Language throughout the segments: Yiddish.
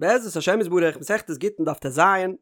בעזרת השם יתברך, מסכת גיטין דף טז,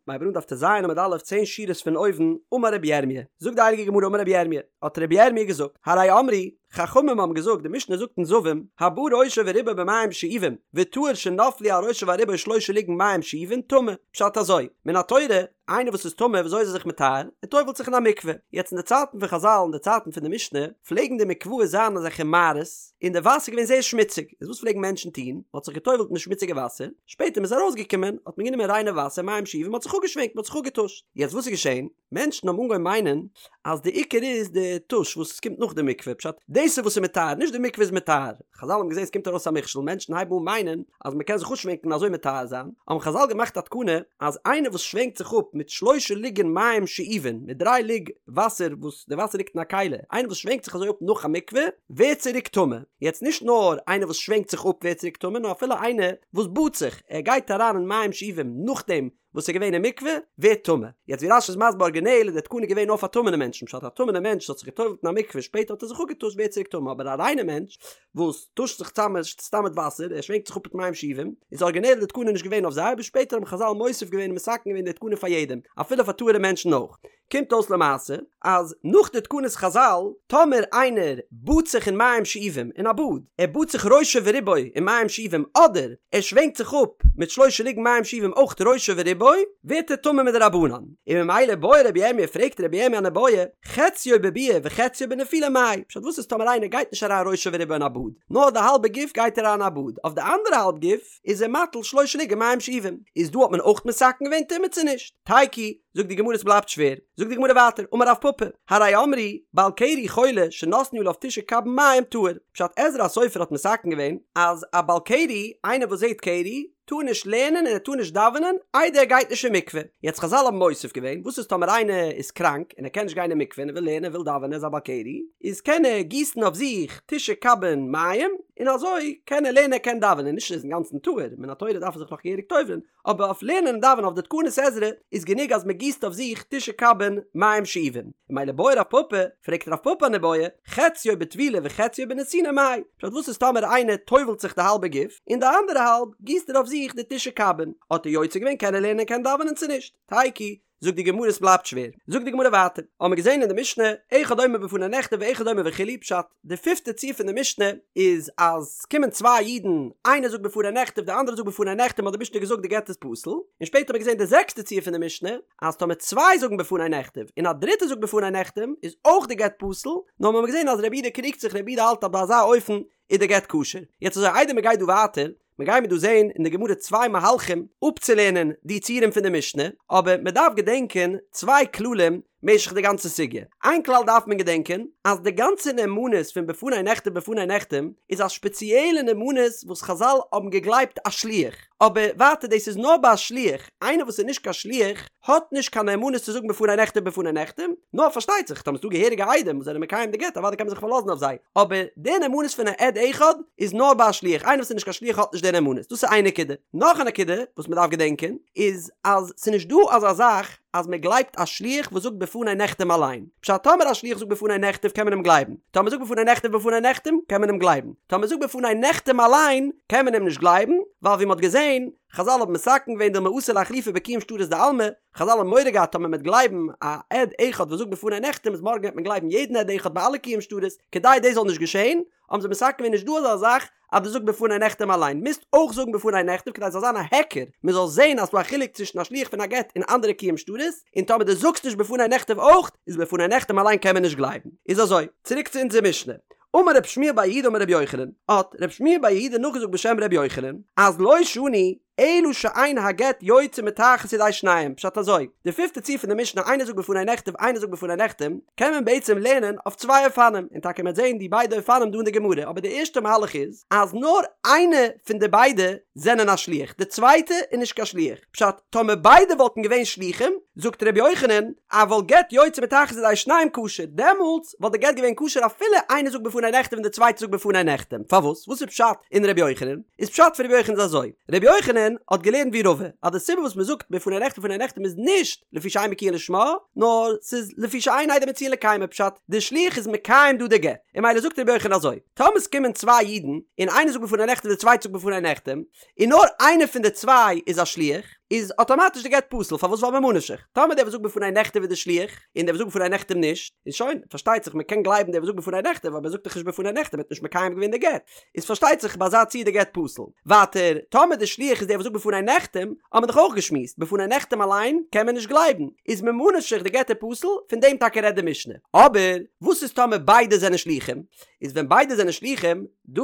מ'הייבט אן דף טז עמוד א', צען שורות פון אויבן, אמר רבי ירמי', זאגט די הייליגע גמרא אמר רבי ירמי', האט רבי ירמי' געזאגט, הרי אמרו, חכמים האבן געזאגט, די משנה זאגט אין זבים, הבא ראשו ורובו במים שאובים, וטהור שנפלו על ראשו ועל רובו שלשה לוגין מים שאובין, טמא, פשט אזוי, מן התורה, איינער וואס איזטמא וויאזוי איז ער זיך מטהר? ער טובל'ט זיך אין א מקווה. יעצט אין די צייטן פון חזל אין די צייטן פון די משנה פלעגן די מקוואות זיין אזעלכע מערות און די וואסער איז געווען זייער שמוציג איז וואס פלעגן מענטשן טון? מען האט זיך געטובל'ט אין די שמוציגע וואסער, שפעטער מען איז ארויסגעקומען האט מען גענומען ריינע וואסער מים שאובים מען האט זיך אפגעשווענקט מען האט זיך אפגעטושט. יעצט וואס איז געשען? מענטשן האבן אנגעהויבן מיינען אז די עיקר איז די טוש וואס קומט נאך די מקווה, פשט, דאס איז וואס איז מטהר, נישט די מקווה איז מטהר. חזל האבן געזען עס קומט ארויס א מכשול, מענטשן הייבן אן מיינען אז מען קען זיך אפשווענקן און אזוי מטהר זיין, האבן חזל געמאכט א תקנה אז איינער וואס שווענקט זיך אפ מיט שלשה לוגין מים שאובין, מיט דריי לוג וואסער וואס די וואסער ליגט אין א כלי, איינער וואס שווענקט זיך אזוי אפ נאך א מקווה, ווערט צוריק טמא. יעצט נישט נאר איינער וואס שווענקט זיך אפ ווערט צוריק טמא, נאר אפילו איינער וואס באדט זיך, ער גייט אריין אין מים שאובים נאכדעם וואס איז געווען אין מקווה ווערט טמא. יעצט ווי רש"י איז מסביר ארגינעל איז די תקנה געווען נאר פאר טמא'נע מענטשן פשט א טמא'נע מענטש וואס האט זיך געטובל'ט אין א מקווה שפעטער האט ער זיך אפגעטושט ווערט צוריק טמא אבער א ריינע מענטש וואס טושט זיך צאם סתם מיט וואסער ער שווענקט זיך אפ מיט מים שאובים איז ארגינעל די תקנה נישט געווען אויף זיי אבער שפעטער האבן חזל מוסיף געווען און מתקן געווען די תקנה פאר יעדעם אפילו פאר טהור'ע מענטשן אויך. קומט אויס למעשה אז נאך די תקנות חזל, טאמער איינער באדט זיך אין מים שאובים אין א באד, ער באדט זיך ראשו ורובו אין מים שאובים אדער ער שווענקט זיך אפ מיט שלשה לוגין מים שאובים אויך ראשו ורובו, ווערט ער טמא מדרבנן. און ממילא בעי רבי ירמיה פרעגט רבי ירמיה אן איבעיא, חציו בביאה וחציו בנפילה מאי, פשט וואס איז טאמער איינער גייט נישט אריין ראשו ורובו אין א באד, נאר די האלבע גוף גייט אריין אין א באד, אויף די אנדערע האלב גוף איז ער מטיל שלשה לוגין מים שאובים, איז דא האט מען אויך מתקן געווען טומאה צו נישט? תיקו, זאגט די גמרא עס בלייבט שווער, זאגט די גמרא ווייטער, אמר רב פפא, הרי אמרו, בעל קרי חולה שנתנו עליו תשעה קבין מים טהור, פשט עזרא הסופר האט מתקן געווען אז א בעל קרי, איינער וואס זעט קרי, טאר נישט לערנען און ער טאר נישט דאווענען איידער ער גייט נישט אין מקווה, יעצט חזל האבן מוסיף געווען, וואס איז טאמער איינער איז קראנק און ער קען נישט גיין אין מקווה און ער וויל לערנען ער וויל דאווענען ער איז א בעל קרי, איז קען ער גיסן אויף זיך תשעה קבין מים, און אזוי קען ער לערנען ער קען דאווענען, נישט ער איז אינגאנצן טהור, מן התורה דארף ער זיך נאך געהעריג טובל'ן, אבער אויף לערנען און דאווענען אויף די תקנות עזרא איז גענוג אז מען גיסט אויף זיך תשעה קבין מים שאובים, און ממילא בעי רב פפא, פרעגט רב פפא אן איבעיא, חציו בטבילה וחציו בנתינה מאי, פשט וואס איז טאמער איינער טובל'ט זיך די האלבע גוף, און די אנדערע האלב גיסט ער אויף זיך די תשעה קבין, האט ער יוצא געווען קען ער לערנען קען דאווענען צו נישט? תיקו, זאגט די גמרא עס בלייבט שווער, זאגט די גמרא ווייטער, האמיר געזען אין די משנה, אחד אומר בפני נכתב ואחד אומר וכו', פשט, די פיפטע ציור פון די משנה איז אז ס'קומען צוויי אידן, איינער זאגט בפני נכתב די אנדערע זאגט בפני נחתם האט די משנה געזאגט די גט איז פסול, און שפעטער האט מען געזען די זעקסטע ציור פון די משנה, אז טאמער צוויי זאגן בפני נכתב און א דריטער זאגט בפני נחתם איז אויך די גט פסול, נאר מ'האט געזען אז רבי יהודה קריגט זיך רבי יהודה האלט אז ביי אזא אופן איז די גט כשר. יעצט אזוי איידער מ'גייט דא ווייטער, מיר גיימיר דא זעהן אין די גמרא צוויי מהלכים אפצולערנען די ציורים פון די משנה, אבער מען דארף געדענקען צוויי כללים משך די גאנצע סוגיא. איין כלל דארף מען געדענקען, אז די גאנצע נאמנות פון בפני נכתב בפני נחתם איז א שפעציעלע נאמנות וואס חזל האבן געגלייבט א שליח, אבער ווייטער דאס איז נאר ביי א שליח, איינער וואס איז נישט קיין שליח האט נישט קיין נאמנות צו זאגן בפני נכתב בפני נחתם, נאר פארשטייט זיך טאמער ס'דא געהעריגע עדים וואס זענען מקיים די גט אוודאי קען מען זיך פארלאזן אויף זיי, אבער די נאמנות פון א עד אחד איז נאר ביי א שליח, איינער וואס איז נישט קיין שליח האט נישט די נאמנות, דאס איז איין נקודה. נאך א נקודה וואס מען דארף געדענקען איז אז ס'איז נישט דא אזא זאך אז מען גלייבט א שליח וואס זאגט בפני נחתם אליין, פשט טאמער א שליח זאגט בפני נכתב קען מען אים גלייבן, טאמער זאגט בפני נכתב בפני נחתם קען מען אים גלייבן, טאמער זאגט בפני נחתם אליין קען מען אים נישט גלייבן, ווייל ווי מען האט געזען חזל האבן מתקן געווען דילמא אתי לאיחלופי בקיום שטרות דעלמא, חזל האבן מורא געהאט טאמער מ'וועט גלייבן א עד אחד וואס זאגט בפני נחתם איז מארגן וועט מען גלייבן יעדן עד אחד ביי אלע קיום שטרות, כדי דאס זאל נישט געשען האבן זיי מתקן געווען נישט דא אזא זאך אז דו זאגסט בפני נחתם אליין, מוזט אויך זאגן בפני נכתב כדי ס'זאל זיין א היכר, מ'זאל זען אז ס'דא א חילוק צווישן א שליח פון א גט און אנדערע קיום שטרות, און טאמער דו זאגסט נישט בפני נכתב אויך, איז בפני נחתם אליין קען מען נישט גלייבן. איז אזוי, צוריק צו אונזער משנה. אמר רב שמואל בר יהודה אמר רבי יוחנן, האט רב שמואל בר יהודה נאכגעזאגט בשם רבי יוחנן, אז לא שנו אלא שאין הגט יוצא מתחת ידי שניהם, פשט אזוי, די פיפטע ציור פון די משנה איינער זאגט בפני נכתב איינער זאגט בפני נחתם, קען מען בעצם לערנען אויף צוויי אופנים, און טאקע מ'וועט זען די ביידע אופנים דא אין די גמרא, אבער די ערשטע מהלך איז, אז נאר איינע פון די ביידע זענען א שליח, די צווייטע איז נישט קיין שליח, פשט, טאמער ביידע וואלטן געווען שלוחים, זאגט ר' יוחנן, אבל גט יוצא מתחת ידי שניהם כשר, דעמאלטס וואלט די גט געווען כשר אפילו איינער זאגט בפני נכתב און די צווייטע זאגט בפני נחתם, פארוואס? וואס איז פשט אין ר' יוחנן? איז פשט פון ר' יוחנן איז אזוי, ר' יוחנן האט געלערנט ווי רבא, אז די סיבה וואס מען זאגט בפני נכתב בפני נחתם איז נישט לפי שאין בקיאין לשמה, נאר ס'איז לפי שאין עדים מצויין לקיימו, פשט, די שליח איז מקיים דא די גט, און ממילא זאגט ר' יוחנן אזוי, טאמער ס'קומען צוויי אידן און איינער זאגט בפני נכתב די צווייטע זאגט בפני נחתם. און נאר איינער פון די צוויי איז א שליח, איז אטאמאטיש די גט פסול, פארוואס ווייל ממה נפשך, טאמער דער וואס זאגט בפני נכתב איז די שליח, און דער וואס זאגט בפני נחתם נישט, איז שוין, פארשטייט זיך מען קען גלייבן דער וואס זאגט בפני נכתב, אבער ער זאגט דאך נישט בפני נחתם, ער האט נישט מקיים געווען די גט, איז פארשטייט זיך ביי אזא ציור די גט פסול. ווייטער, טאמער די שליח איז דער וואס זאגט בפני נחתם, האט מען דאך אויך געשמועסט, בפני נחתם אליין קען מען נישט גלייבן, איז ממה נפשך די גט איז פסול, פון דעם טאקע רעדט די משנה. אבער, וואס איז טאמער ביידע זענען שליחים? איז ווען ביידע זענען שליחים, דא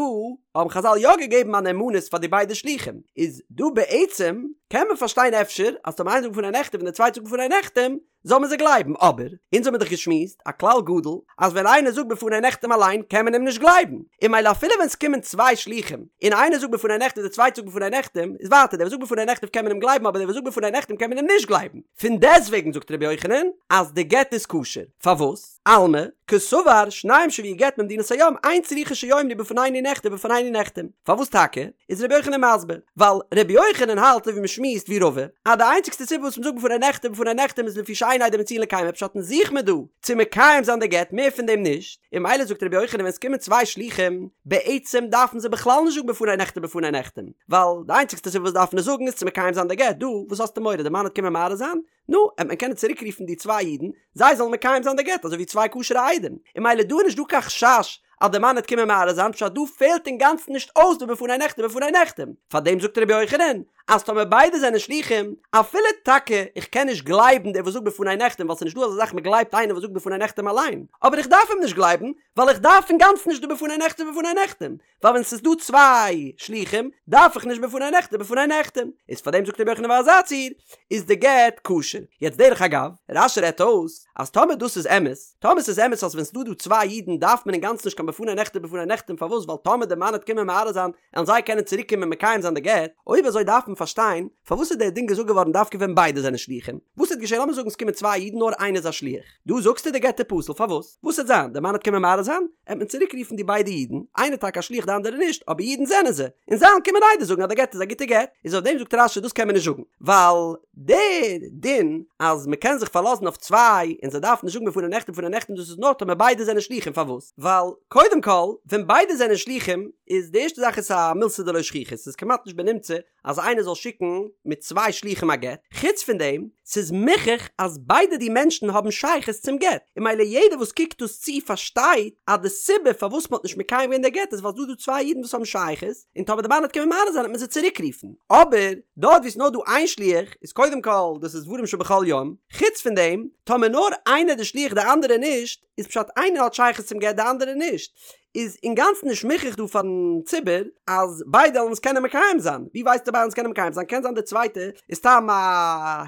האבן חזל יא געגעבן א נאמנות פאר די ביידע שליחים, איז דא בעצם קען מען פארשטיין אפשר אז טאמער איינער זאגט בפני נכתב און דער צווייטער זאגט בפני נחתם, זאל מען זיי גלייבן, אבער אונז האמיר דאך געשמועסט א כלל גדול אז ווען איינער זאגט בפני נחתם אליין קען מען אים נישט גלייבן, און ממילא אפילו ווען ס'קומען צוויי שליחים און איינער זאגט בפני נכתב דער צווייטער זאגט בפני נחתם, איז ווייטער דער וואס זאגט בפני נכתב קען מען אים גלייבן אבער דער וואס זאגט בפני נחתם קען מען אים נישט גלייבן, פון דעסטוועגן זאגט רבי יוחנן אז די גט איז כשר, פארוואס? אלמא, קסבר, שניים שהביאו גט ממדינת הים, אין צריכין שיאמרו בפנינו נכתב בפנינו נחתם. פארוואס טאקע? איז רבי יוחנן מסביר, ווייל רבי יוחנן האלט אזוי ווי מ'שמועסט ווי רבא, אז די איינציגסטע סיבה וואס מ'זאגט בפני נכתב בפני נחתם איז לפי שאין עדים מצויין לקיימו פשט אונז זוך מיר דא צו מקיים זיין די גט מער פון דעם נישט, און ממילא זאגט רבי יוחנן ווען ס'קומען צוויי שלוחים, בעצם דארפן זיי בכלל נישט זאגן בפני נכתב בפני נחתם, ווייל די איינציגסטע סיבה וואס דארפן עס זאגן איז צו מקיים זיין די גט, דא וואס האסטו מורא די מאן וועט קומען מערער זיין? נו, וועט מען קענען צוריק רופן די צוויי אידן, זיי זאלן מקיים זיין די גט אזוי ווי צוויי כשר'ע עדים, און ממילא דא איז נישט דא קיין חשש אז די מאן וועט קומען מערער זיין, פשט דא פעלט אינגאנצן נישט אויס די בפני נכתב בפני נחתם, פארדעם זאגט רבי יוחנן אז טאמער ביידע זענען שלוחים, אפילו טאקע איך קען נישט גלייבן דער וואס זאגט בפני נחתם ווייל ס'איז נישט דא אזא זאך מ'גלייבט איינער וואס זאגט בפני נחתם אליין, אבער איך דארף אים נישט גלייבן ווייל איך דארף אינגאנצן נישט די בפני נכתב בפני נחתם, ווייל ווען ס'איז דא צוויי שלוחים דארף איך נישט בפני נכתב בפני נחתם, איז פארדעם זאגט רבי יוחנן ביי אזא ציור איז די גט כשר. יעצט דרך אגב, רש"י רעדט אויס אז טאמער דאס איז אמת, טאמער ס'איז אמת אז ווען ס'דא דא צוויי אידן דארף מען אינגאנצן נישט קיין בפני נכתב בפני נחתם פארוואס ווייל טאמער די מאן וועט קומען מערער זיין וועלן זיי קענען צוריק קומען מקיים זיין די גט, אויב אזוי דארף מען פארשטיין פארוואס איז דער דין געזאגט געווארן דווקא ווען ביידע זענען שלוחים, וואס וועט געשען לאמיר זאגן ס'קומען צוויי אידן נאר איינער איז א שליח, דא זאגסטו די גט איז פסול פארוואס? וואס וועט זיין? די מאן וועט קומען מערער זיין? עט מען צוריק רופן די ביידע אידן, איינער טאקע א שליח די אנדערע נישט, אבער אידן זענען זיי, און זיי וועלן קומען עדות זאגן אז די גט איז א גוטע גט, איז אויף דעם זאגט רש"י דאס קען מען נישט זאגן, ווייל די דין אז מען קען זיך פארלאזן אויף צוויי און זיי דארפן נישט זאגן בפני נכתב בפני נחתם דאס איז נאר טאמער ביידע זענען שליחים פארוואס? ווייל קודם כל ווען ביידע זענען שליחים איז די ערשטע זאך איז א מילתא דלא שכיחא ס'איז כמעט נישט בנמצא אז איינער זאל שיקן מיט צוויי שלוחים א גט, חוץ פון דעם, ס'איז מוכח אז ביידע די מענטשן האבן שייכות צום גט, און ממילא יעדער וואס קוקט דאס צו פארשטייט אז די סיבה פארוואס מ'האט נישט מקיים געווען די גט איז ווייל ס'דא דא צוויי אידן וואס האבן שייכות, און טאמער די מאן וועט קומען מערער זיין וועט מען זיי צוריק רופן. אבער, דארט וואו ס'איז נאר דא איין שליח, איז קודם כל דאס איז דברים שבכל יום, חוץ פון דעם, טאמער נאר איינער די שליח די אנדערע נישט, איז פשט איינער האט שייכות צום גט די אנדערע נישט, איז אינגאנצן נישט מוכרח דא פארן ציבור אז ביידע וועלן עס קענען מקיים זיין, ווי ווייסטו ביידע וועלן עס קענען מקיים זיין, קען זיין די צווייטע איז סתם א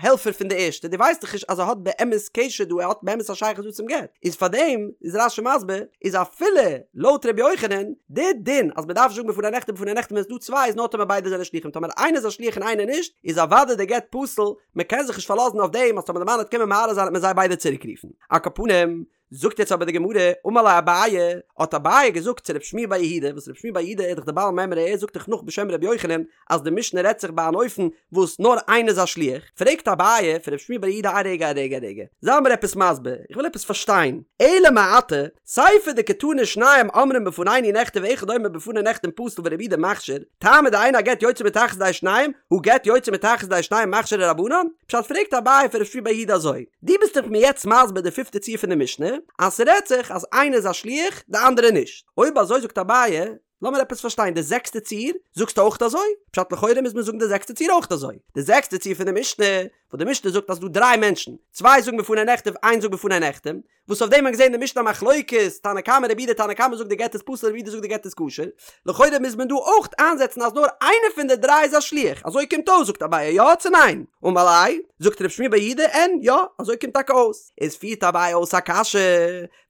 העלפער פון די ערשטע, דו ווייסט דאך נישט אז ער האט באמת קשר דא, ער האט באמת א שייכות דא צום גט, איז פארדעם איז רש"י מסביר איז אפילו לויט ר' יוחנן די דין אז מען דארף זאגן בפני נכתב בפני נחתם ווען עס איז דא צוויי איז נאר טאמער ביידע זענען שליחים טאמער איינער איז א שליח און איינער נישט איז אוודאי די גט פסול, מען קען זיך נישט פארלאזן אויף דעם אז טאמער די מאן וועט קומען מערער זיין וועט מען זיי ביידע צוריק רופן. על כל פנים, זאגט יעצט אבער די גמרא, אמר ליה אביי, האט אביי געזאגט צו רב שמואל בר יהודה, וואס רב שמואל בר יהודה איז דאך דער בעל מימרא ער זאגט דאך נאך בשם רבי יוחנן אז די משנה רעדט זיך ביי אן אופן וואס נאר איינער איז א שליח, פרעגט אביי פון רב שמואל בר יהודה א רגע א רגע א רגע, זיי מיר עפעס מסביר, איך וויל עפעס פארשטיין, אלא מעתה, סיפא דקתני שניים אומרים בפנינו נכתב ואחד אומר בפני נחתם פסול ורבי יהודה מכשיר, טעמא דאין הגט יוצא מתחת ידי שניהם, הא גט יוצא מתחת ידי שניהם מכשירי רבנן? פשט פרעגט אביי פון רב שמואל בר יהודה אזוי, דו ביסט דאך מיר יעצט מסביר די פיפטע ציור פון די משנה, אז ס'רעדט זיך אז איינער איז א שליח די אנדערע נישט, אויב אזוי זאגט אביי, לאמיר עפעס פארשטיין די זעקסטע ציור זאגסטו אויך אזוי? פשט לכאורה מוז מען זאגן די זעקסטע ציור אויך אזוי, די זעקסטע ציור פון די משנה, וואס די משנה זאגט אז ס'דא דריי מענטשן, צוויי זאגן בפני נכתב איינס זאגט בפני נחתם, וואס אויף דעם האט מען געזען אין די משנה א מחלוקת, תנא קמא רבי יהודה תנא קמא זאגט די גט איז פסול רבי יהודה זאגט די גט איז כשר, לכאורה מוז מען דא אויך איינזעצן אז נאר איינער פון די דריי איז א שליח, אזוי קומט אויס זאגט אביי יא צו ניין? אמר ליה, זאגט רב שמואל בר יהודה אין יא אזוי קומט טאקע אויס, איז פירט אביי אויס א קשיא,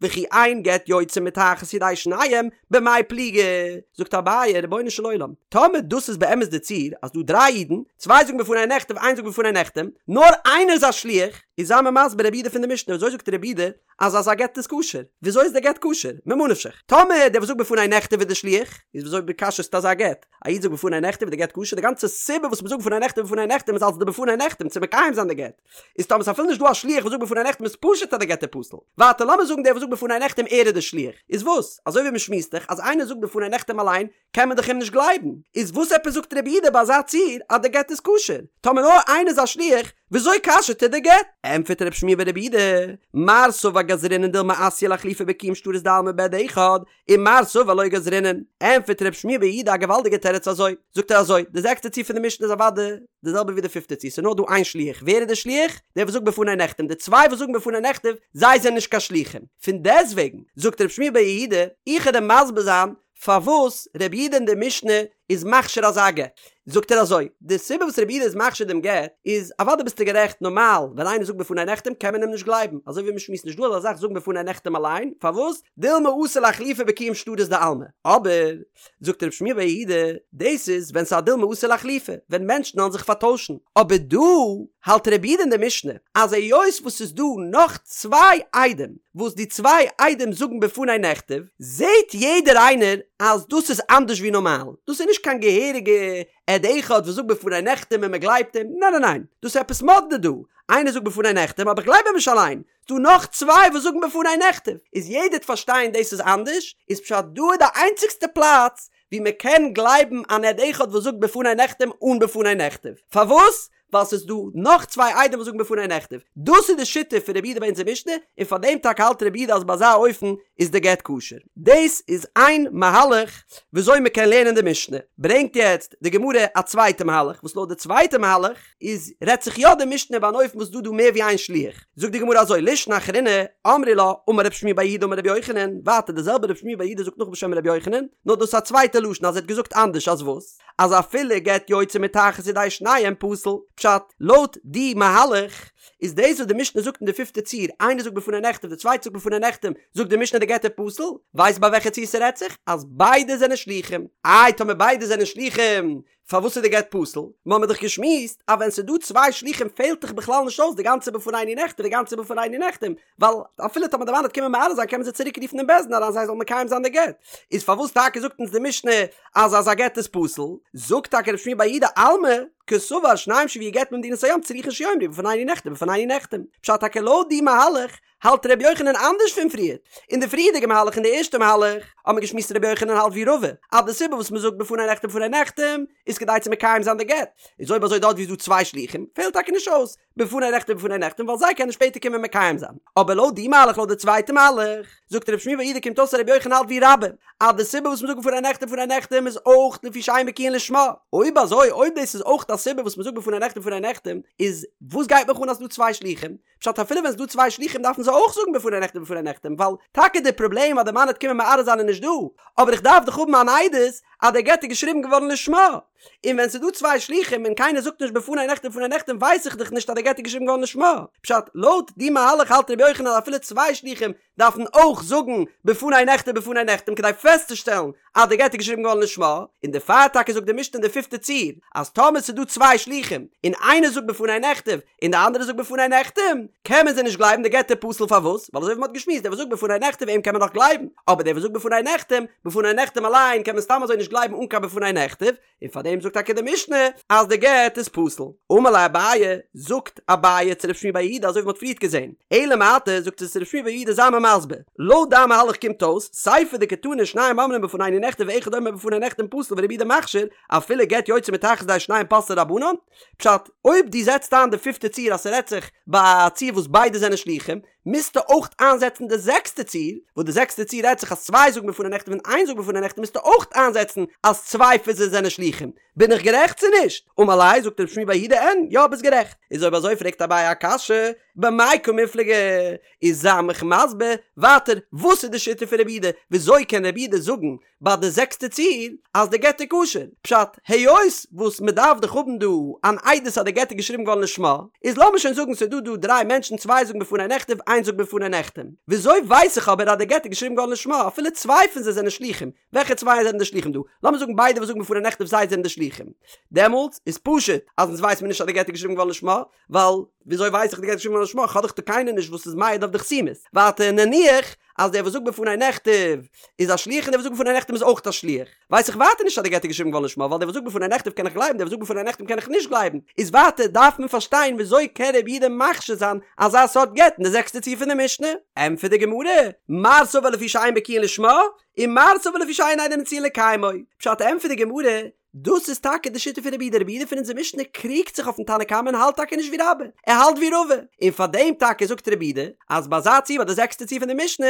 וכי אין גט יוצא מתחת ידי שניהם במאי פליגי, זאגט אביי רבונו של עולם, טאמער דאס איז באמת די ציור אז דא דריי אידן, צוויי זאגן בפני נכתב איינס זאגט בפני נחתם, נאר איינער איז א שליח, איז זיי מיר מסביר רבי יהודה פון די משנה וויאזוי זאגט רבי יהודה אז אזא גט איז כשר? וויאזוי איז די גט כשר? ממה נפשך? טאמער דער וואס זאגט בפני נכתב איז די שליח, איז וויאזוי כשר'סטו אזא גט? א איד זאגט בפני נכתב איז די גט כשר? די גאנצע סיבה וואס מ'זאגט בפני נכתב בפני נחתם איז אלס די בפני נחתם צו מקיים זיין די גט. איז טאמער ס'איז אפילו נישט דא א שליח וואס זאגט בפני נחתם איז פשוט אז די גט איז פסול. ווייטער לאמיר זאגן דער וואס זאגט בפני נחתם ער איז די שליח. איז וואס? אזוי ווי מ'שמועסט דאך אז איינער זאגט בפני נחתם אליין קען מען דאך אים נישט גלייבן. איז וואס עפעס זאגט רבי יהודה ביי אזא ציור אז די גט איז כשר? טאמער נאר איינער איז א שליח, וויאזוי כשר'ט ער די גט? ענטפערט רב שמואל בר רבי יהודה, מר סבר גזרינן דילמא אתיא לאחלופי בקיום שטרות דעלמא בעד אחד, ומר סבר לא גזרינן. ענטפערט רב שמואל בר יהודה א געוואלדיגע תירוץ אזוי, זאגט ער אזוי, די זעקסטע ציור פון די משנה איז אוודאי די זעלבע ווי די פיפטע ציור, ס'איז נאר דא איין שליח, ווער איז די שליח? דער וואס זאגט בפני נחתם, די צוויי וואס זאגן בפני נכתב, זיי זענען נישט קיין שליחים. פון דעסטוועגן, זאגט רב שמואל בר יהודה, איך וועל דיר מסביר זיין פארוואס רבי יהודה אין די משנה איז מכשיר אזא גט, זאגט ער אזוי, די סיבה וואס רבי יהודה איז מכשיר דעם גט איז, אוודאי ביסטו גערעכט, נארמאל ווען איינער זאגט בפני נחתם קען מען אים נישט גלייבן, אזוי ווי מ'שמועסט נישט דא אזא זאך זאגן בפני נחתם אליין, פארוואס? דילמא אתי לאחלופי בקיום שטרות דעלמא, אבער, זאגט רב שמואל בר יהודה, דאס איז ווען ס'איז א דילמא אתי לאחלופי, ווען מענטשן וועלן זיך פארטוישן, אבער דא האלט רבי יהודה אין די משנה אז היות וואס ס'איז דא נאך צוויי עדים וואס די צוויי עדים זאגן בפני נכתב, זעהט יעדער איינער אז דאס איז אנדערש ווי נארמאל, דאס איז נישט קיין געהעריגע עד אחד וואס זאגט בפני נחתם און מ'גלייבט אים, ניין ניין ניין, דאס איז עפעס מאדנע דא, איינער זאגט בפני נחתם אבער איך גלייב אים נישט אליין, ס'דא נאך צוויי וואס זאגן בפני נכתב, איז יעדער וועט פארשטיין דאס איז אנדערש, איז פשט דא איז די איינציגסטע פלאץ ווי מען קען גלייבן אן עד אחד וואס זאגט בפני נחתם אן בפני נכתב, פארוואס? ווייל ס'איז דא נאך צוויי עדים וואס זאגן בפני נכתב, דאס איז די שיטה פון רבי יהודה ביי אונזער משנה, און פאר דעם טאקע האלט רבי יהודה אז ביי אזא אופן איז די גט כשר. דאס איז איין מהלך וויאזוי מען קען לערנען די משנה, ברענגט יעצט די גמרא א צווייטע מהלך, וואס לויט די צווייטע מהלך איז רעדט זיך יא די משנה ביי אן אופן וואס דא דא מער ווי איין שליח, זאגט די גמרא אזוי לישנא אחרינא אמרי לה אמר רב שמואל בר יהודה אמר רבי יוחנן, ווייטער די זעלבע רב שמואל בר יהודה זאגט נאך בשם רבי יוחנן, נאר דאס איז א צווייטע לשון אז ער האט געזאגט אנדערש אז וואס? אז אפילו גט יוצא מתחת ידי שניהם פסול, פשט, לויט די מהלך איז דאס וואס די משנה זאגט אין די פיפטע ציור, איינער זאגט בפני נכתב די צווייטע זאגט בפני נחתם, זאגט די משנה די גט איז פסול, ווייסט ביי וועלכע ציור ס'רעדט זיך? אז ביידע זענען שלוחים, איי טאמער ביידע זענען שלוחים פארוואס איז די גט פסול? מ'האמיר דאך געשמועסט אז ווען ס'איז דא צוויי שלוחים פעלט דאך בכלל נישט אויס די גאנצע בפנינו נכתב די גאנצע בפנינו נחתם, ווייל אפילו טאמער די מאן וועט קומען מערער זיין קען מען זיי צוריק רופן אין בית דין אריין זיי זאלן מקיים זיין די גט, איז פארוואס טאקע זאגט אונז די משנה אז אזא גט איז פסול? זאגט טאקע רב שמואל בר יהודה אלמא קסבר שניים שהביאו גט ממדינת הים צריכין שיאמרו בפנינו נכתב בפנינו נחתם, פשט טאקע לויט די מהלך האלט ר' יוחנן אנדערש פון פריער. אין די פריערדיגע מהלך אין די ערשטע מהלך האט מען געשמועסט ר' יוחנן האלט ווי רבא אז די סיבה וואס מען זאגט בפני נכתב בפני נחתם איז כדי צו מקיים זיין די גט, איז אויב אזוי דארט ווי איז דא צוויי שלוחים פעלט טאקע נישט אויס בפני נכתב בפני נחתם ווייל זיי קענען שפעטער קומען מקיים זיין. אבער לויט די מהלך לויט די צווייטע מהלך זאגט ר' שמואל בר יהודה קומט אויס אז ר' יוחנן האלט ווי רבה אז די סיבה וואס מען זאגט בפני נכתב בפני נחתם איז אויך לפי שאין בקיאין לשמה. אויב אזוי אויב דאס איז אויך א סיבה וואס מען זאגט בפני נכתב בפני נחתם איז וואס גייט מיך אן אז ס'דא צוויי שלוחים? פשט אפילו ווען ס'דא צוויי שלוחים דארפן זיי אויך זאגן בפני נכתב בפני נחתם ווייל טאקע די פראבלעם אז די מאן וועט קומען מערער זיין איז נישט דא אבער איך דארף דאך האבן אן עדות אז די גט איז געשריבן געווארן לשמה און ווען ס'דא צוויי שלוחים און קיינער זאגט נישט בפני נכתב בפני נחתם ווייס איך דאך נישט אז די גט איז געשריבן געווארן לשמה פשט לויט די מהלך האלט רבי יוחנן אז אפילו צוויי שלוחים דארפן אויך זאגן בפני נכתב בפני נחתם כדי פעסטצושטעלן אז די גט איז געשריבן געווארן לשמה, און דערפאר טאקע זאגט די משנה אין די פיפטע ציור אז טאמער ס'איז דא צוויי שלוחים און איינער זאגט בפני נכתב און די אנדערע זאגט בפני נחתם קען מען זיי נישט גלייבן די גט איז פסול פארוואס ווייל אזוי ווי מ'האט געשמועסט דער וואס זאגט בפני נכתב אים קען מען נאך גלייבן אבער דער וואס זאגט בפני נחתם בפני נחתם אליין קען מען סתם אזוי נישט גלייבן אן קיין בפני נכתב און פאר דעם זאגט טאקע די משנה אז די גט איז פסול. אמר ליה אביי, זאגט אביי צו רב שמואל בר יהודה אזוי ווי מ'האט פריערט געזען, אלא מעתה זאגט ער צו רב שמואל בר יהודה זיי מיר מסביר, לויט דיין מהלך קומט אויס, סיפא דקתני שניים אומרים בפנינו נכתב ואחד אומר בפני נחתם פסול ורבי יהודה מכשיר, אפילו גט יוצא מתחת ידי שניהם פסלו רבנן, פשט, אויב דו זעצט איין די פיפטע ציור אז ס'רעדט זיך ביי א ציור וואס ביידע זענען שלוחים, מוזטו אויך איינזעצן די זעקסטע ציור, וואס די זעקסטע ציור רעדט זיך אז צוויי זאגן בפני נכתב און איין זאגט בפני נחתם מוזטו אויך איינזעצן אז צוויי פון זיי זענען שלוחים. בין איך גערעכט צו נישט? אמר ליה, זאגט רב שמואל בר יהודה אין, יא ביסט גערעכט. איז אויב אזוי פרעגט אביי א קשיא, במאי קמיפלגי? איז זיי מיך מסביר ווייטער וואס איז די שיטה פון רבי יהודה? וויאזוי קען רבי יהודה זאגן ביי די זעקסטע ציור אז די גט איז כשר, פשט, היות וואס מען דארף דאך האבן דא אן עדות אז די גט איז געשריבן געווארן לשמה, איז לאמיר שוין זאגן ס'איז דא דא דריי מענטשן צוויי זאגן בפני נכתב איינס זאגט בפני נחתם, וויאזוי ווייס איך אבער אז די גט איז געשריבן געווארן לשמה אפילו צוויי פון זיי זענען שלוחים, וועלכע צוויי זענען די שלוחים דא? לאמיר זאגן ביידע וואס זאגן בפני נכתב זיי זענען די שלוחים, דעמאלטס איז פשוט אז אונז ווייס מיר נישט אז די גט איז געשריבן געווארן לשמה, ווייל. וויאזוי ווייס איך די גט איז געשריבן געווארן לשמה? כ'האב דאך דא קיינער נישט וואס איז מעיד אויף די חתימות. ווייטער נניח אז דער וואס זאגט בפני נכתב איז א שליח און דער וואס זאגט בפני נחתם איז אויך א שליח. ווייס איך ווייטער נישט אז די גט איז געשריבן געווארן לשמה ווייל דער וואס זאגט בפני נכתב קען איך גלייבן דער וואס זאגט בפני נחתם קען איך נישט גלייבן. איז ווייטער דארף מען פארשטיין וויאזוי קען רבי יהודה מכשיר זיין אזא סארט גט אין די זעקסטע ציור פון די משנה? ענטפערט די גמרא, מר סבר לפי שאין בקיאין לשמה, און מר סבר לפי שאין עדים מצויין לקיימו. פשט ענטפערט די גמרא, דאס איז טאקע די שיטה פון רבי יהודה, רבי יהודה פון אונזער משנה קריגט זיך אויפן תנא קמא און האלט טאקע נישט ווי רבה, ער האלט ווי רבא, און פאר דעם טאקע זאגט רבי יהודה אז ביי אזא ציור ביי די זעקסטע ציור פון די משנה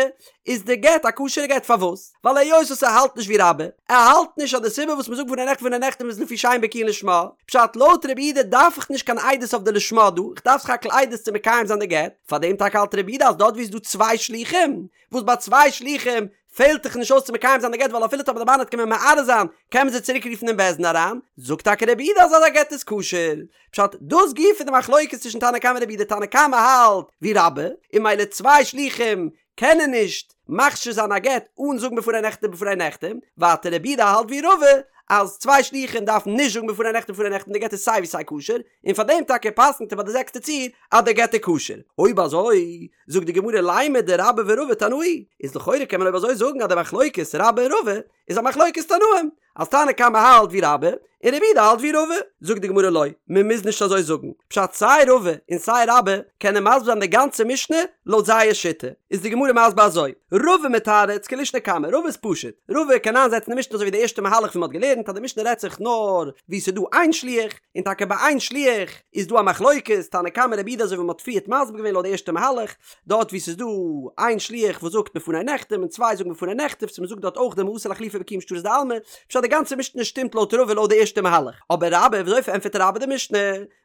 איז די גט א כשר'ע גט פארוואס? ווייל היות וואס ער האלט נישט ווי רבה, ער האלט נישט אז די סיבה וואס מ'זאגט בפני נכתב ובפני נחתם איז לפי שאין בקיאין לשמה, פשט לויט רבי יהודה דארף איך נישט קיין עדות אויף די לשמה דא, איך דארף סך הכל עדות צו מקיים זיין די גט, פאר דעם טאקע האלט רבי יהודה אז דארט ווי איז דא צוויי שלוחים, וואס ביי צוויי שלוחים פעלט דאך נישט אויס צו מקיים זיין די גט ווייל אפילו טאמער די מאן וועט קומען מערער זיין קען מען זיי צוריק רופן אין בית דין אריין, זאגט טאקע רבי יהודה אז אזא גט איז כשר. פשט, דאס גופא איז די מחלוקת צווישן תנא קמא און רבי יהודה, תנא קמא האלט ווי רבה, און ממילא צוויי שלוחים קענען נישט מכשיר זיין א גט אן זאגן בפני נכתב ובפני נחתם, ווייטער רבי יהודה האלט ווי רבא אז צוויי שלוחים דארפן נישט זאגן בפני נכתב ובפני נחתם די גט איז סיי ווי סיי כשר, און פאר דעם טאקע פסק'נט ער ביי די זעקסטע ציור אז די גט איז כשר. אויב אזוי זאגט די גמרא לימא דרבה ורבא תנאי, איז לכאורה קען מען אויב אזוי זאגן אז די מחלוקת רבה און רבא איז א מחלוקת תנאים, אז תנא קמא האלט ווי רבה און רבי יהודה האלט ווי רבא, זאגט די גמרא לא, מען מוז נישט אזוי זאגן, פשט סיי רבא און סיי רבה קענען מסביר זיין די גאנצע משנה לויט זייער שיטה, איז די גמרא מסביר אזוי, רבא מתרץ כלישנא קמא, רבא איז פשוט, רבא קען איינזעצן די משנה אזוי ווי די ערשטע מהלך ווי מען האט געלערנט אז די משנה רעדט זיך נאר ווי ס'איז דא איין שליח, און טאקע ביי איין שליח איז דא א מחלוקת תנא קמא רבי יהודה אזוי ווי מען האט פריערט מסביר געווען לויט די ערשטע מהלך, דארט ווי ס'איז דא איין שליח וואס זאגט בפני נחתם און צוויי זאגן בפני נכתב צו מ'זאגט דארט אויך דילמא אתי לאיחלופי בקיום שטרות דעלמא, פשט די גאנצע משנה שטימט לויט רבא לויט די ערשטע מהלך, אבער רבה וויאזוי פארענטפערט רבה די משנה?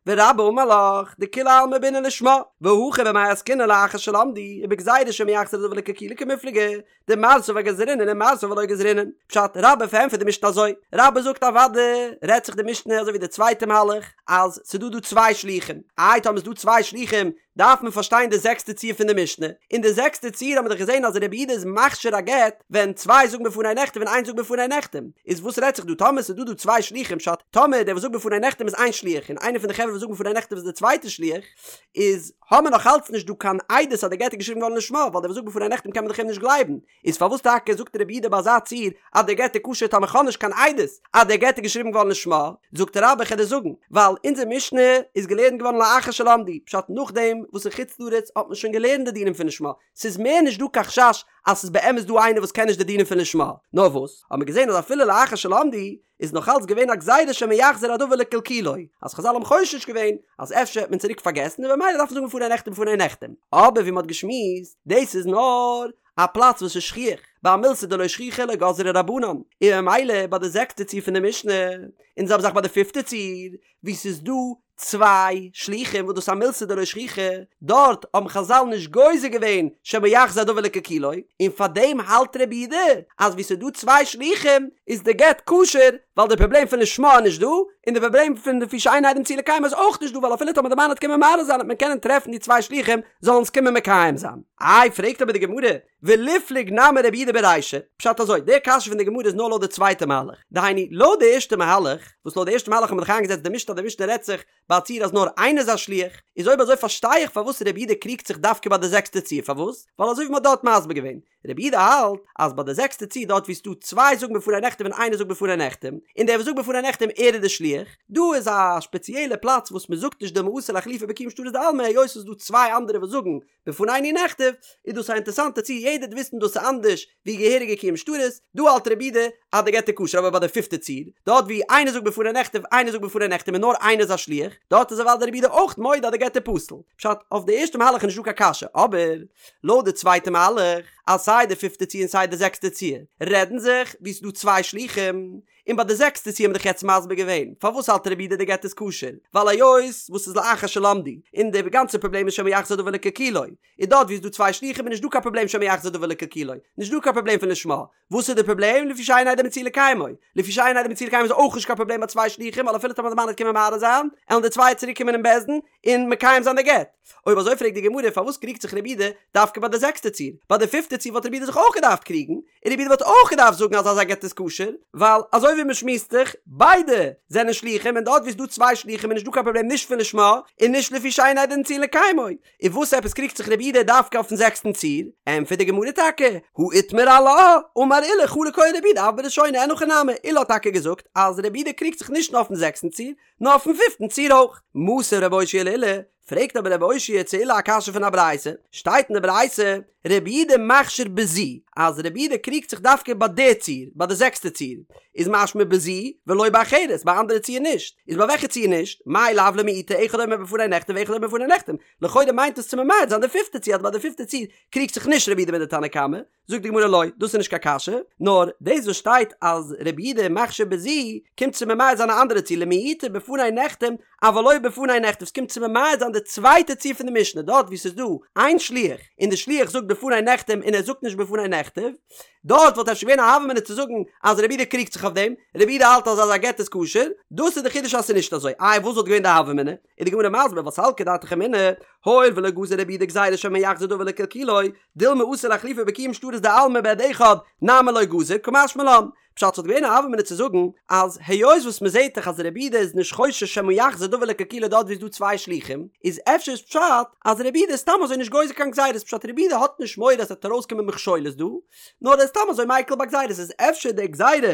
ורבה אמר לך דכולי עלמא בעינן לשמה, והכא במאי עסקינן לאחר שלמדו, ובגזירה שמא יחזור הדבר לקלקולו קמיפלגי, דמר סבר גזרינן ומר סבר לא גזרינן. פשט, רבה פארענטפערט די משנה אזוי, רבה זאגט אוודאי רעדט זיך די משנה אזוי ווי די צווייטע מהלך, אז ס'דא דא צוויי שלוחים, איי טאמער ס'דא צוויי שלוחים דארף מען פארשטיין די זעקסטע ציור פון די משנה, אין די זעקסטע ציור האט מען דאך געזען אז רבי יהודה איז מכשיר א גט ווען צוויי זאגן בפני נכתב און איינס זאגט בפני נחתם, איז וואס רעדט זיך דא טאמער ס'איז דא דא צוויי שלוחים פשט טאמער דער וואס זאגט בפני נחתם איז איין שליח און איינער פון די חברה וואס זאגן בפני נכתב איז די צווייטע שליח, איז האמער נאך אלץ נישט דא קיין עדות אז די גט איז געשריבן געווארן לשמה ווייל דער וואס זאגט בפני נחתם קען מען דאך אים נישט גלייבן, איז פארוואס טאקע זאגט רבי יהודה ביי אזא ציור אז דער גט איז כשר טאמער כ'האב נישט קיין עדות אז דער גט איז געשריבן געווארן לשמה? זאגט רבה כ'על דיר זאגן, ווייל אונזער משנה איז געלערנט געווארן לאחר שלמדו, פשט נאכדעם וואס אין חוץ לארץ האט מען שוין געלערנט די דינים פון לשמה, ס'איז מער נישט דא קיין חשש אז ס'איז באמת דא איינער וואס קען נישט די דינים פון לשמה, נאר וואס האט מען געזען אז אפילו לאחר שלמדו איז נאך אלץ געווען א גזירה שמא יחזור הדבר לקלקולו, אז חזל האבן חושש געווען אז אפשר וועט מען צוריק פארגעסן און במילא דארף מען זאגן בפני נכתב ובפני נחתם, אבער ווי מ'האט געשמועסט, דאס איז נאר א פלאץ וואס איז שכיח, ביי א מילתא דלא שכיחא לא גזרו רבנן, און ממילא ביי די זעקסטע ציור פון די משנה, און די זעלבע זאך ביי די פיפטע ציור, וואו ס'איז דא צוויי שלוחים וואס דאס איז א מילתא דלא שכיחא, דארט האבן חזל נישט גוזר געווען שמא יחזור הדבר לקלקולו, און פארדעם האלט רבי יהודה אז וואו ס'איז דא צוויי שלוחים איז די גט כשר, ווייל די פראבלעם פון לשמה איז נישט דא, און די פראבלעם פון לפי שאין עדים מצויין לקיימו איז אויך נישט דא ווייל אפילו טאמער די מאן וועט קומען מערער זיין וועט מען קענען טרעפן די צוויי שלוחים זאלן עס קומען מקיים זיין. איי פרעגט אבער די גמרא, וליפלוג נמי רבי יהודה ברישא, פשט אזוי, די קשיא פון די גמרא איז נאר לויט די צווייטע מהלך, דהיינו לויט די ערשטע מהלך, וואס לויט די ערשטע מהלך האט מען דאך איינגעזעצט די משנה אז די משנה רעדט זיך ביי א ציור אז נאר איינער איז א שליח, איז אויב אזוי פארשטיי איך פארוואס רבי יהודה קריגט זיך דווקא ביי די זעקסטע ציור, פארוואס? ווייל אזוי ווי מען האט דארט מסביר געווען, רבי יהודה האלט אז ביי די זעקסטע ציור דארט ווי ס'דא צוויי זאגן בפני נכתב און איינער זאגט בפני נחתם, און דער וואס זאגט בפני נחתם ער איז די שליח, דא איז א שפעציעלע פלאץ וואס מען זאגט נישט דילמא אתי לאיחלופי בקיום שטרות דעלמא היות ס'איז דא צוויי אנדערע וואס זאגן בפנינו נכתב, איז דאס א אינטערסאנטע ציור יעדער וועט וויסן דאס איז אנדערש ווי געהעריגע קיום שטרות, דא האלט רבי יהודה אז די גט איז כשר אבער ביי די פיפטע ציור, דארט ווי איינער זאגט בפני נכתב איינער זאגט בפני נחתם און נאר איינער איז א שליח, דארט איז אוודאי רבי יהודה אויך מודה אז די גט איז פסול. פשט, אויף די ערשטע מהלך איז נישטא קיין קשיא, אבער לויט די צווייטע מהלך, אז סיי די פיפטע ציור און סיי די זעקסטע ציור רעדן זיך ווי ס'איז דא צוויי שלוחים, און ביי די זעקסטע ציור האבן מיר דאך יעצט מסביר געווען פארוואס האלט רבי יהודה די גט איז כשר, ווייל היות וואס איז לאחר שלמדו, און די גאנצע פראבלעם איז שמא יחזור דבר לקלקולו, און דארט ווי איז דא צוויי שלוחים איז נישט דא קיין פראבלעם שמא יחזור דבר לקלקולו, נישט דא קיין פראבלעם פון לשמה, וואס איז די פראבלעם? לפי שאין עדים מצויין לקיימו, לפי שאין עדים מצויין לקיימו איז אויך נישט קיין פראבלעם ביי צוויי שלוחים ווייל אפילו טאמער די מאן וועט קומען מערער זיין, עלן די צוויי צוריק קומען אין בית דין און מקיים זיין די גט. אויב אזוי פרעגט די גמרא פארוואס קריגט זיך רבי יהודה דווקא ביי די זעקסטע ציור? ביי די פיפטע ציור וואלט רבי יהודה זיך אויך געדארפט קריגן, און רבי יהודה וואלט אויך געדארפט זאגן אז אזא גט איז כשר, ווייל אזוי אזוי ווי מ'שמועסט זיך, ביידע זענען שלוחים און דארט ווי ס'דא צוויי שלוחים איז נישט דא קיין פראבלעם נישט פון לשמה און נישט לפי שאין עדים מצויין לקיימו, און וואס עפעס קריגט זיך רבי יהודה דווקא אויפן זעקסטן ציור? ענטפערט די גמרא טאקע, הא איתמר עלה, אמר עולא חלוק היה רבי יהודה אף בראשונה אין הכי נמי, עולא האט טאקע געזאגט אז רבי יהודה קריגט זיך נישט נאר אויפן זעקסטן ציור, נאר אויפן פיפטן ציור אויך. מתיב רב אושעיא לעולא, פרעגט אבער רב אושעיא צו עולא א קשיא פון א ברייתא, שטייט אין די ברייתא, רבי יהודה מכשיר בזו, אז רבי יהודה קריגט זיך דווקא ביי די ציור, ביי די זעקסטע ציור, איז משמע בזו ולא באחרת, ביי אנדערע ציור נישט, איז ביי וועלכע ציור נישט? מאי לאו למעוטי אחד אומר בפני נכתב ואחד אומר בפני נחתם, לכאורה מיינט עס צו ממעט זיין די פיפטע ציור אז ביי די פיפטע ציור קריגט זיך נישט רבי יהודה מיט די תנא קמא, זאגט די גמרא לא, דאס איז נישט קיין קשיא, נאר דאס וואס שטייט אז רבי יהודה מכשיר בזו קומט צו ממעט זיין א אנדערע ציור למעוטי בפני נחתם אבל לא בפני נכתב, ס'קומט צו ממעט זיין די צווייטע ציור פון די משנה דארט וואו ס'איז דא איין שליח און די שליח זאגט בפני נחתם און ער זאגט נישט בפני נכתב, דארט וואלט אפשר געווען א הוה אמינא צו זאגן אז רבי יהודה קריגט זיך אויף דעם, רבי יהודה האלט אז אז א גט איז כשר, דאס איז די חידוש אז ס'איז נישט אזוי, איי וואס וואלט געווען די הוה אמינא? איז די גמרא מסביר ווייל סלקא דעתך אמינא, הואיל ולא גזר רבי יהודה גזירה שמא יחזור דבר לקלקולו, דילמא אתי לאחלופי בקיום שטרות דעלמא בעד אחד, נמי לא גזר, קא משמע לן. פשט ס'וואלט געווען א הוה אמינא צו זאגן אז היות וואס מ'זעהט דאך אז רבי יהודה איז נישט חושש שמא יחזור דבר לקלקולו דארט ווי ס'דא צוויי שלוחים, איז אפשר איז פשט אז רבי יהודה איז סתם אזוי נישט גוזר קיין גזירות פשט רבי יהודה האט נישט מורא אז ס'וועט ארויסקומען מכשולות דא, נאר ער איז סתם אזוי מיקל ביי גזירות איז אפשר די גזירה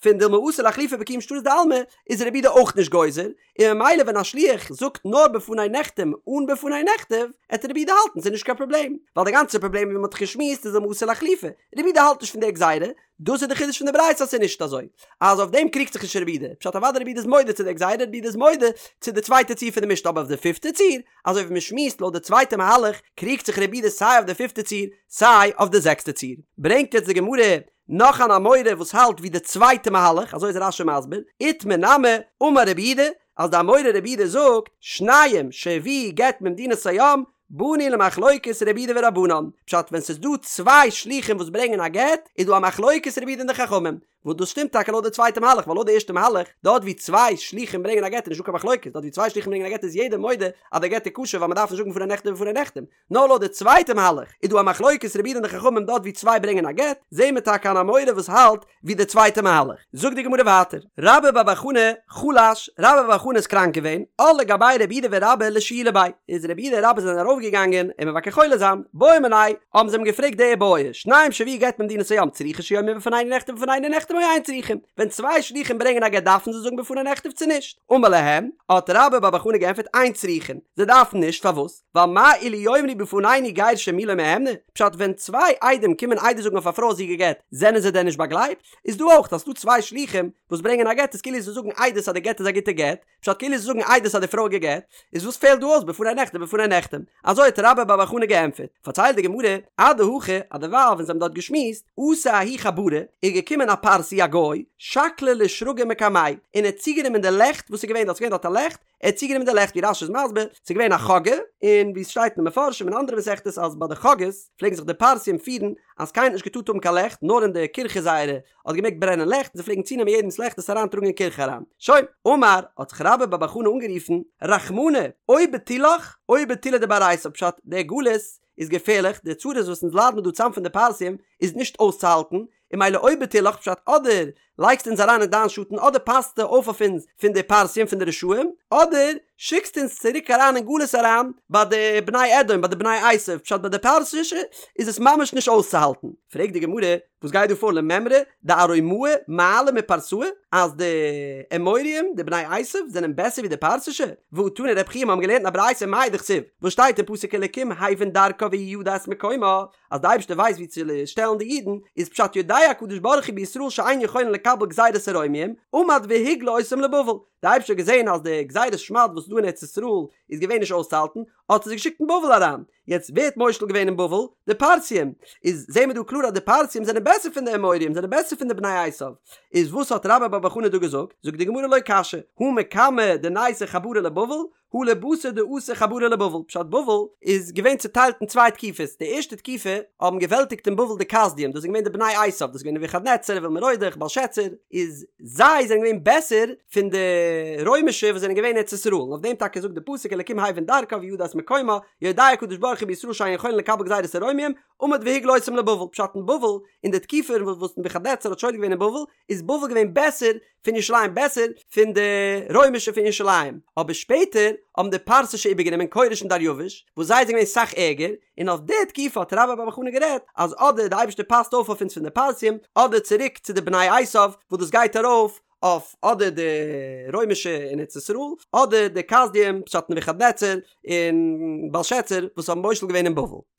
פון דילמא אתי לאחלופי בקיום שטרות דעלמא איז רבי יהודה אויך נישט גוזר, און ממילא ווען א שליח זאגט נאר בפני נחתם אן בפני נכתב, עט רבי יהודה האלטן ס'איז נישט קיין פראבלעם, ווייל די גאנצע פראבלעם ווי מ'האט דאך געשמועסט איז דילמא אתי לאחלופי, רבי יהודה האלט נישט פון די גזירה, דאס איז די חידוש פון די ברייתא אז ס'איז נישט אזוי, אז אויף דעם קריגט זיך נישט רבי יהודה, פשט אוודאי רבי יהודה איז מודה צו די גזירה, רבי יהודה איז מודה צו די צווייטע ציור פון די משנה אבער אויף די פיפטע ציור, אזוי ווי מ'שמועסט לויט די צווייטע מהלך, קריגט זיך רבי יהודה סיי אויף די פיפטע ציור סיי אויף די זעקסטע ציור. ברענגט יעצט די גמרא נאך אן אמורא וואס האלט ווי די צווייטע מהלך, אזוי איז רש"י מסביר, איתמר נמי, אמר רבי יהודה, אז די אמורא רבי יהודה זאגט, שניים שהביאו גט ממדינת הים, באנו למחלוקת רבי יהודה ורבנן, פשט ווען ס'איז דא צוויי שלוחים וואס ברענגען א גט, איז דא א מחלוקת רבי יהודה און די חכמים, וואס דאס שטימט טאקע לויט די צווייטע מהלך, ווייל לויט די ערשטע מהלך, דארט ווי צוויי שלוחים ברענגען א גט איז נישטא קיין מחלוקת, דארט ווי צוויי שלוחים ברענגען א גט איז יעדער מודה אז די גט איז כשר ווייל מ'דארף נישט זאגן בפני נכתב ובפני נחתם, נאר לויט די צווייטע מהלך איז דא א מחלוקת רבי יהודה און די חכמים דארט ווי צוויי ברענגען א גט, זעהן מיר טאקע אן אמורא וואס האלט ווי די צווייטע מהלך. זאגט די גמרא ווייטער, רבה בר בר חנה חלש, רבה בר בר חנה איז קראנק געווען, עול לגביה רב יהודה ורבה לשיולי ביה, איז רב יהודה און רבה זענען ארויף געגאנגען אים מבקר חולה זיין, בעו מיניה, האבן זיי אים געפרעגט די בעיא, שניים שהביאו גט ממדינת הים צריכין שיאמרו בפנינו נכתב ובפנינו נחתם או אין צריכין, ווען צוויי שלוחים ברענגען א גט דארפן זיי זאגן בפני נכתב צו נישט? אמר להם, האט רבה בר בר חנה געענטפערט אין צריכין, זיי דארפן נישט, פארוואס? ווייל מה אילו יאמרו בפנינו גירשה מי לא מהימני, פשט ווען צוויי עדים קומען עדות זאגן אויף א פרוי אז זי איז גע'גט, זענען זיי דען נישט באגלייבט? איז דא אויך אז ס'דא צוויי שלוחים וואס ברענגען א גט איז כאילו זיי זאגן עדות אז די גט איז א גוטע גט, פשט כאילו זיי זאגן עדות אז די פרוי איז גע'גט, איז וואס פעלט דא אויס בפני נכתב ובפני נחתם? אזוי האט רבה בר בר חנה געענטפערט. פארציילט די גמרא, אדהכי, אז דערווייל ווען זיי האבן דארט געשמועסט, אתא ההוא חברא, איז געקומען א פרסי א גוי, שקליה לשרגא מקמייהו, און ער האט צוגענומען די לעכט וואס איז געווען דארט, ס'איז געווען דארט א לעכט, ער האט צוגענומען די לעכט ווי רש"י איז מסביר, ס'איז געווען א חגא, און ווי עס שטייט אין די מפרשים און אנדערע מסכתות אז ביי די חגאות פלעגן זיך די פרסים פירן אז קיינער האט נישט געטארט האבן קיין לעכט נאר אין די קירכע זייערע האט געמעגט ברענען לעכט און זיי פלעגן צונעמען יעדעמס לעכט עס אריינטראגן אין קירכע אריין. שוין, אמר, האט זיך רבה בר בר חנה אנגערופן, רחמנא, או בטולך או בטולי דבר עשו, פשט, דער גלות איז געפערליך, די צרות וואס אונז ליידן מיר דא צאם פון די פרסים איז נישט אויסצוהאלטן, און ממילא או בטולך פשט אדער לייגסט אונז אריין אין דיין שאטן אדער פאסטו אויף אויף אונז פון די פרסים פון די רשעים אדער שיקסט אונז צוריק אריין אין גלות אריין ביי די בני אדום ביי די בני עשו פשט ביי די פרסישע איז עס ממש נישט אויסצוהאלטן. פרעגט די גמרא וואס גייט דא פאר למימרא דארומאי מעלי מפרסאי אז די אמוריים די בני עשו זענען בעסער ווי די פרסישע והא תני רב חייא מיר האבן געלערנט אין א ברייתא מאי דכתיב וואס שטייט אין פסוק אלקים הבין דרכה והוא ידע את מקומה אז די אייבערשטער ווייסט ווי צו שטעלן די אידן, איז פשט יודע הקדוש ברוך הוא בישראל שאין יכולין לקבל גזירת הרומיים, עמד והגלה אותם לבבל, די אייבערשטער האט געזען אז די גזירת שמד וואס איז דא אין ארץ ישראל איז געווען נישט אויסצוהאלטן, האט ער זיי געשיקט אין בבל אריין, יעצט ווער האט מושל געווען אין בבל? די פרסים, איז זעהן מיר דא קלאר אז די פרסים זענען בעסער פון די אמוריים, זענען בעסער פון די בני עשיו, איז וואס האט רבה בר בר חנה דא געזאגט? זאגט די גמרא לא קשיא, הא מקמי דניתו חברי לבבל, הא לבתר דאתו חברי לבבל, פשט בבל איז געווען צוטיילט אין צוויי תקופות, די ערשטע תקופה האבן געוועלטיגט אין בבל די כשדים, דאס איז געווען די בני עשיו, דאס איז געווען נבוכדנצר, אויל מרודך, בלשצר, איז זיי זענען געווען בעסער פון די רוימישע וואס זענען געווען אין ארץ ישראל, און אויף דעם טאקע זאגט די פסוק אלקים הבין דרכה וידע את מקומה, יודע הקדוש ברוך הוא בישראל שאין יכולין לקבל גזירת הרומיים, עמד והגלה אותם לבבל, פשט אין בבל, אין די תקופה וואס נבוכדנצר האט שולט געווען אין בבל, איז בבל געווען בעסער פון ירושלים בעסער פון די רוימישע פון ירושלים, אבער שפעטער האבן די פרסישע איבערגענומען כורש און דריווש, וואס זיי זענען געווען סאך ערגער, און אויף די תקופה האט רבה בר בר חנה גערעדט אז אדער די אייבערשטער פאסט אויף אויף אונז פון די פרסים, אדער צוריק צו די בני עשיו וואס דאס גייט ארויף אויף אדער די רוימישע אין ארץ ישראל, אדער די כשדים פשט נבוכדנצר און בלשצר וואס האבן מושל געווען אין בבל.